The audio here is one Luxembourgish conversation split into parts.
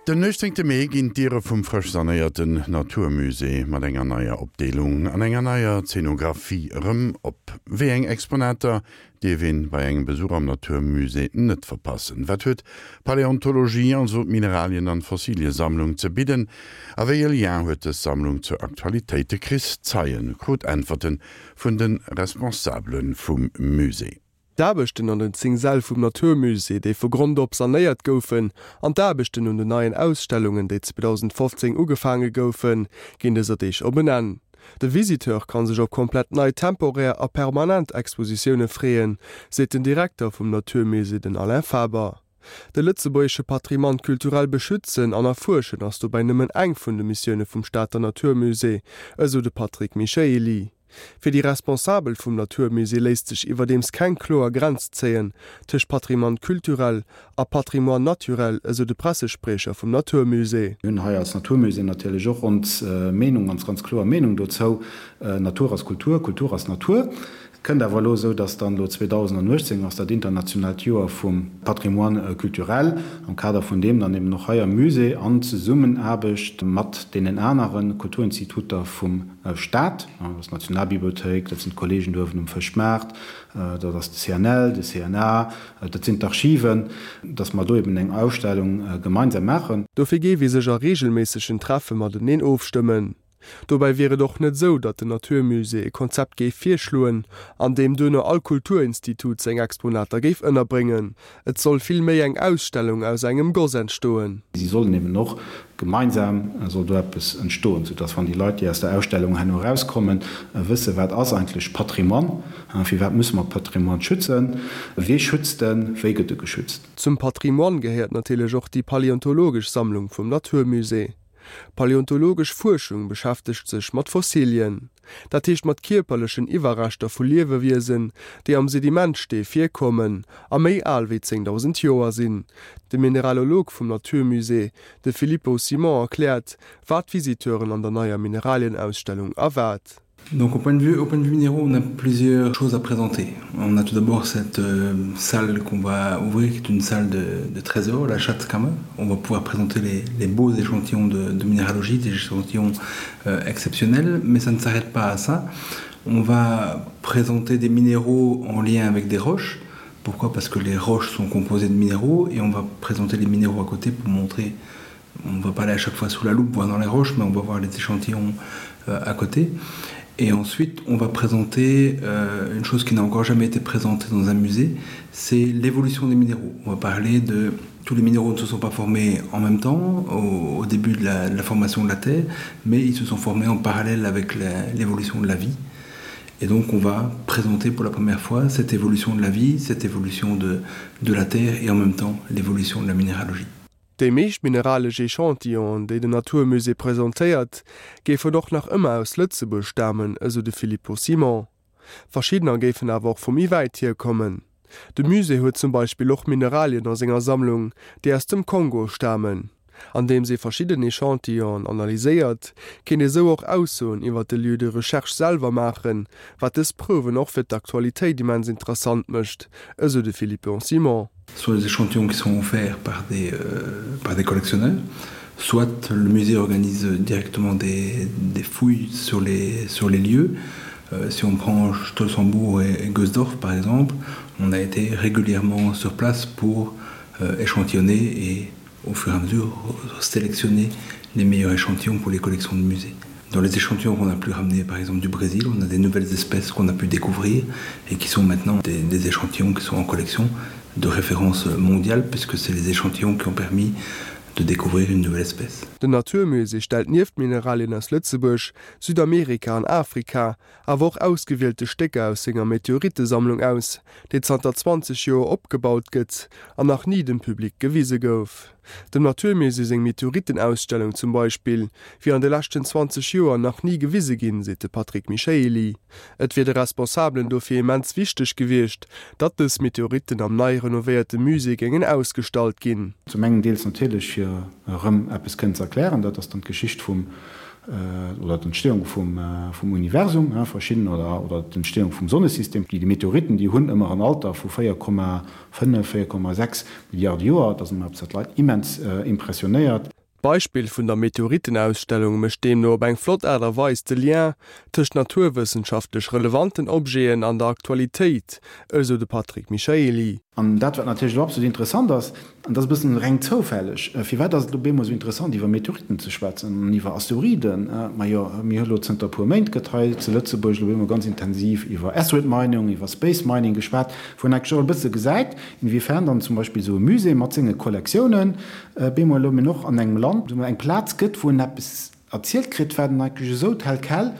Den 18 Mee ginn d'Diere vum frësch sanéierten Natur Musée mat enger neier Opdeelung an enger neier Zeenografie erëm op. Wéi eng Exponater dierf een bei engem Besuch am Natur Musée net verpassen? Wat huet d'Paläontologie, also d'Mineralien an Fossiliesammlung ze bidden? A wéi e Lien huet dës Sammlung zur Aktualitéit? De Chris Zeien krut Äntwerte vun de Responsabele vum Musée. D'Aarbechten an den 10 Säll vum Natur Musée, déi vu Grond op sanéiert goufen, an d'Aarbechten un den neien Ausstellungen, déi 2015 ugefaange goufen, ginn dëser Deeg op en Enn. De Visiteur kann sech op komplett nei temporär a permanent Expositioune freeën, seet den Direkter vum Natur Musée, den Alain Faber. De lëtzebuergesche Patrimoine culturel beschützen an erfuerschen ass dobäi nëmmen eng vun de Missioune vum Stater Natur Musée, esou de Patrick Michaely. Fir déi Responsabel vum Natur Musée léisst sech iwwerdeems keng kloer Grenz zéien tëscht Patrimoine culturel a Patrimoine naturel, esou de Pressespriecher vum Natur Musée. Mir hunn hei als Natur Musée natierlech och ons Meenung, ons ganz kloer Meenung dozou, Natur ass Kultur, Kultur ass Natur. Et kënnt awer elo esou, dass dann elo 2018 ass dat internationaalt Joer vum Patrimoine culturel, am Kader vun deem dann eben och hei am Musée an Zesummenaarbecht mat deenen anere Kulturinstituter vum Staat, dat ass d'Nationalbibliothéik, dat sinn d'Kollegen do uewen um Fëschmaart, dat ass de CNL, de CNA, dat sinn d'Archiven, dass mer do eben eng Ausstellung gemeinsam maachen. Dofir géif ee sech a reegelméissegen Treffe mateneen ofstëmmen. Dobäi wier et och net esou, datt den Natur Musée e Konzept géif virschloen, an deem duerno all Kulturinstitut seng Exponater géif ënnerbréngen. Et soll vill méi eng Ausstellung aus engem Goss entstoen. Si sollen eben och gemeinsam soll do eppes entstoen, soudass wann déi Leit, déi aus der Ausstellung herno erauskommen, wëssen, wat ass eigentlech Patrimoine, firwat musse mer Patrimoine schützen, wee schützt en, wéi gëtt e geschützt. Zum Patrimoine gehéiert natierlech och déi paläontologesch Sammlung vum Natur Musée. Paläontologesch Fuerschung beschäftegt sech mat Fossilien, dat heescht mat kierperlechen Iwwerreschter vu Liewewiesen, déi am Sedimentstee virkommen a méi al wéi 10.000 Joer sinn. De Mineralolog vum Natur Musée, de Filippo Simon erkläert, wat d'Visiteuren an der neier Mineralienausstellung erwaart. Donc au point de vue au point de vue minéraux, on a plusieurs choses à présenter. On a tout d'abord cette euh, salle qu'on va ouvrir qui est une salle de, de trésor, la Schatzkammer. On va pouvoir présenter les, les beaux échantillons de, de minéralogie, des échantillons euh, exceptionnels, mais ça ne s'arrête pas à ça. On va présenter des minéraux en lien avec des roches. Pourquoi Parce que les roches sont composées de minéraux et on va présenter les minéraux à côté pour montrer on va pas aller à chaque fois sous la loupe voir dans les roches mais on va voir les échantillons euh, à côté et ensuite on va présenter euh, une chose qui n'a encore jamais été présentée dans un musée c'est l'évolution des minéraux on va parler de tous les minéraux ne se sont pas formés en même temps au, au début de la, de la formation de la terre mais ils se sont formés en parallèle avec l'évolution de la vie et donc on va présenter pour la première fois cette évolution de la vie cette évolution de, de la terre et en même temps l'évolution de la minéralogie Déi meescht mineralesch Echantillonen, déi den Natur Musée presentéiert, géifen och nach ëmmer aus Lëtzebuerg stamen, esou de Filippo Simon. Verschiddener géifen awer och vu méi wäit hier kommen. De Musée huet zum Beispill och Mineralien a senger Sammlung, déi aus dem Kongo stamen. Andeems ee verschidden Echantillonen analyséiert, kéint ee sou och Aussoen iwwer de Lieu de recherche selwer maachen, wat dës Prouwen och fir d'Aktualitéit immens interessant mécht, esou de Philippe Simon. Soit les échantillons qui sont offerts par des, euh, par des collectionneurs, soit le musée organise directement des, des fouilles sur les, sur les lieux. Euh, si on prend Stolzenbourg et, et Gosdorf par exemple, on a été régulièrement sur place pour euh, échantillonner et au fur et à mesure sélectionner les meilleurs échantillons pour les collections de musées. Dans les échantillons qu'on a pu ramener par exemple du Brésil, on a des nouvelles espèces qu'on a pu découvrir et qui sont maintenant des, des échantillons qui sont en collection de référence mondiale puisque c'est les échantillons qui ont permis de découvrir une nouvelle espèce. Den Natur Musée stellt nieft Mineralien aus Lëtzebuerg, Südamerika an Afrika awer och ausgewielte Stécker aus senger Meteorittesammlung aus, déi zanter 20 Joer opgebaut gëtt an nach ni dem Public gewise gouf. Dem Natur Musée seng Meteorittenausstellung zum Beispill wier an de leschten 20 Joer nach ni gewise ginn, seet de Patrick Michaely. Et wier de Responsabelen dofir immens wichteg gewiescht, datt dës Meteoritten am nei renovéierte Musée géingen ausgestallt ginn. Zum engen deels natierlech fir erëm eppes kënnen ze erklären, dat ass dann d'Geschicht vum, oder d'Entstehung vum, vum Universum, verschidden, oder, oder d'Entstehung vum Sonnesystem. Déi Meteoritten, déi hunn ëmmer en Alter vu 4,5, 4,6 Milliarde Joer. Dat ass ëmmer eppes, wat d'Leit immens impressionéiert. D'Beispill vun der Meteoritenausstellung mécht deemno op eng flott Aart a Weis de Lien tëscht naturwëssenschaftlech relevanten Objeten an der Aktualitéit, esou de Patrick Michaely. An dat, wat natierlech elo absolut interessant ass, an dat ass e bëssen reng zoufälleg, firwat ass et elo bemol esou interessant, iwwer Meteoriten ze schwätzen an iwwer Asteroiden? Majo, mir hu elo zënter e puer Méint gëtt hei zu Lëtzebuerg elo bemol ganz intensiv iwwer Asteroid Mining, iwwer Space Mining geschwat, wou een eigentlech och e bësse gesäit, inwiefern dann zum Beispill esou e Musée mat senge Kollektiounen bemol elo och an engem Land eng Plaz gëtt, wou en eppes erzielt kritt, wat en eigentlech esou tel quel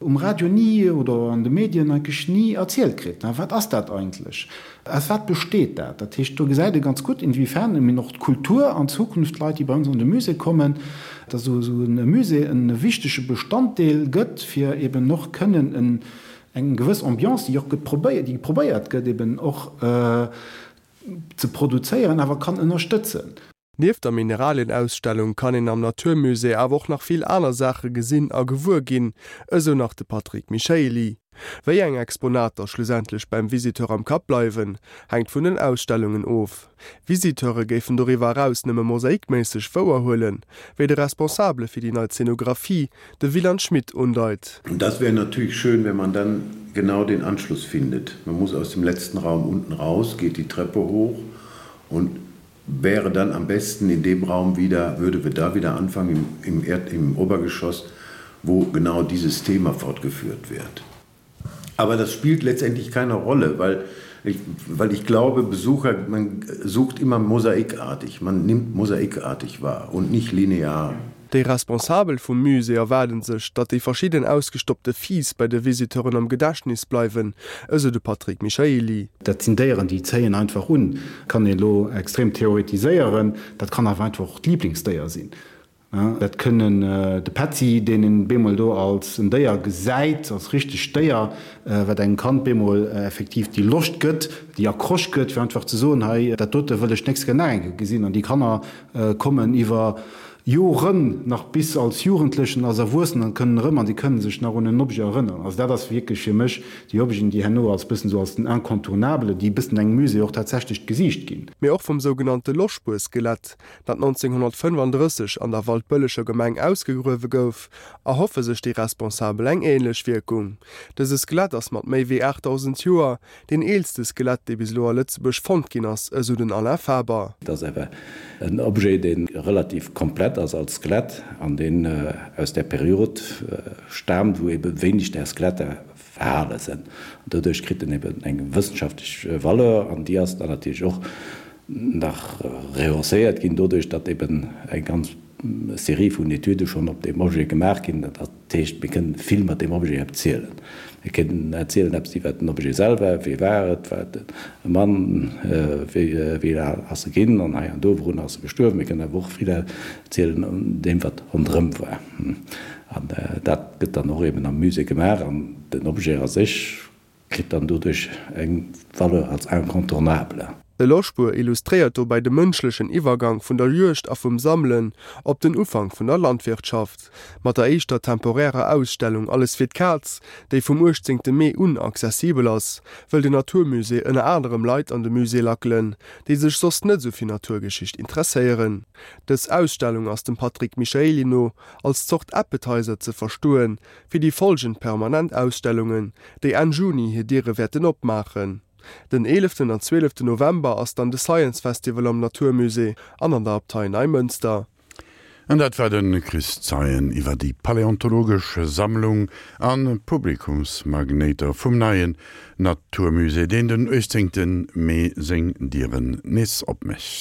um Radio ni oder an de Medien eigentlech ni erzielt kritt. Wat ass dat eigentlech? Aus wat besteet dat? Dat heescht, do gesäit ee ganz gutt, inwiefern eben och d'Kultur an Zukunft d'Leit, déi bei ons an de Musée kommen, dass esou e Musée e wichtege Bestanddeel gëtt, fir eben och kënnen en eng gewëss Ambiance, déi och gëtt probéiert, déi probéiert gëtt eben och ze produzéieren, awer kann ënnerstëtzen. Nieft der Mineralienausstellung kann een am Naturmusée awer och nach vill aner Saache gesinn a gewuer ginn, esou nach de Patrick Michaely. Wéi eng Exponater schlussendlech beim Visiteur am Kapp bleiwen, hänkt vun den Ausstellungen of. Visiteure géifen doriwwer eraus nëmme mosaikméisseg wouerhuelen, wéi de Responsabele fir déi nei Zenographie, de Wieland Schmidt, undeit. Und das wäre natürlich schön, wenn man dann genau den Anschluss findet. Man muss aus dem letzten Raum unten raus, geht die Treppe hoch und wäre dann am besten in dem Raum wieder, würde wir da wieder anfangen im, im, Erd, im Obergeschoss, wo genau dieses Thema fortgeführt wird. Aber das spielt letztendlich keine Rolle, weil ich, weil ich glaube, Besucher man sucht immer mosaikartig, man nimmt mosaikartig wahr und nicht linear. Déi Responsabel vum Musée erwaarde sech, datt déi verschidden ausgestoppte Fiiss bei de Visiteuren am Gedächtnis bleiwen, esou de Patrick Michaely. Dat sinn Déieren, déi zéien einfach un. Kann een elo extrem theoretiséieren, dat kann awer einfach och d'Liblingsdéier sinn. Dat kënnen de Petzi, deen een bemol do als en Déier gesäit, als richtegt Déier, wat engem Kand bemol effektiv déi Loscht gëtt, déi Accroche gëtt, fir einfach ze soen, hei, dat dote wëll ech d'nächst Kéier nach eng Kéier gesinn. An déi Kanner kommen iwwer Joren nach bis als Jugendlechen, als Erwuessenen an kënnen erëm an déi kënnen sech nach un en Objet erënneren. Also dat ass wierklech fir mech déi Objeten, déi herno als bëssen esou als den Incontournable, déi e bëssen engem Musée och tatsächlech d'Gesiicht ginn. Mee och vum sougenannte Loschbuer-Skelett, dat 1935 an der Waldbëlleger Gemeng ausgegruewe gouf, erhoffe sech déi Responsabel eng änlech Wierkung. Dëse Skelett ass mat méi wéi 8.000 Joer deen eelste Skelett, dee bis elo a Lëtzebuerg fonnt ginn ass, esou den Alain Faber. Et ass awer en Objet, dee relativ komplett ass als Skelett an deen aus där Period staamt, wou ebe wéineg där Skeletter erhale sinn. An doduerch kritt en eben eng wëssenschaftlech Valeur an déi ass dann natierlech och nach rehausseiert ginn doduerch, datt eben eng ganz Serie vun Etüde schonn op deem Objet gemaach ginn. Dat heescht, mir kënnen vill mat deem Objet erzielen. Mir kënnen erzielen eppes iwwert den Objet selwer, Wie war et, war et e Mann, wéi al ass e ginn an hei an do, wourun ass e gestuerwen. Mir kënnen awer och vill erzielen un deem, wat ronderëm war. An dat gëtt dann och eben am Musée gemaach an den Objet a sech kritt dann doduerch eng Valeur als incontournable. De Loschbuer illustréiert dobäi de mënschlechen Iwwergank vun der Juegd a vum Sammelen op den Ufank vun der Landwirtschaft. Mat der éischter temporärer Ausstellung Alles fir d'Kaz, déi vum 18 Mee un accessibel ass, wëll den Naturmusée ënner anerem Leit an de Musée lackelen, déi sech soss net esou fir Naturgeschicht interesséieren. Dës Ausstellung ass dem Patrick Michaely no als Zort Appetizer ze verstoen, fir déi folgend permanent Ausstellungen, déi Enn Juni hir Diere wäerten opmaachen. Den eeleften an zwieleften November ass dann de Science Festival am Naturmusée an an der Abtei Neimënster. An dat war de Chris Zeien iwwer déi paläontologesch Sammlung a Publikumsmagnéiter vum neien Naturmusée, deen den 18 Mee seng Dieren nees opmécht.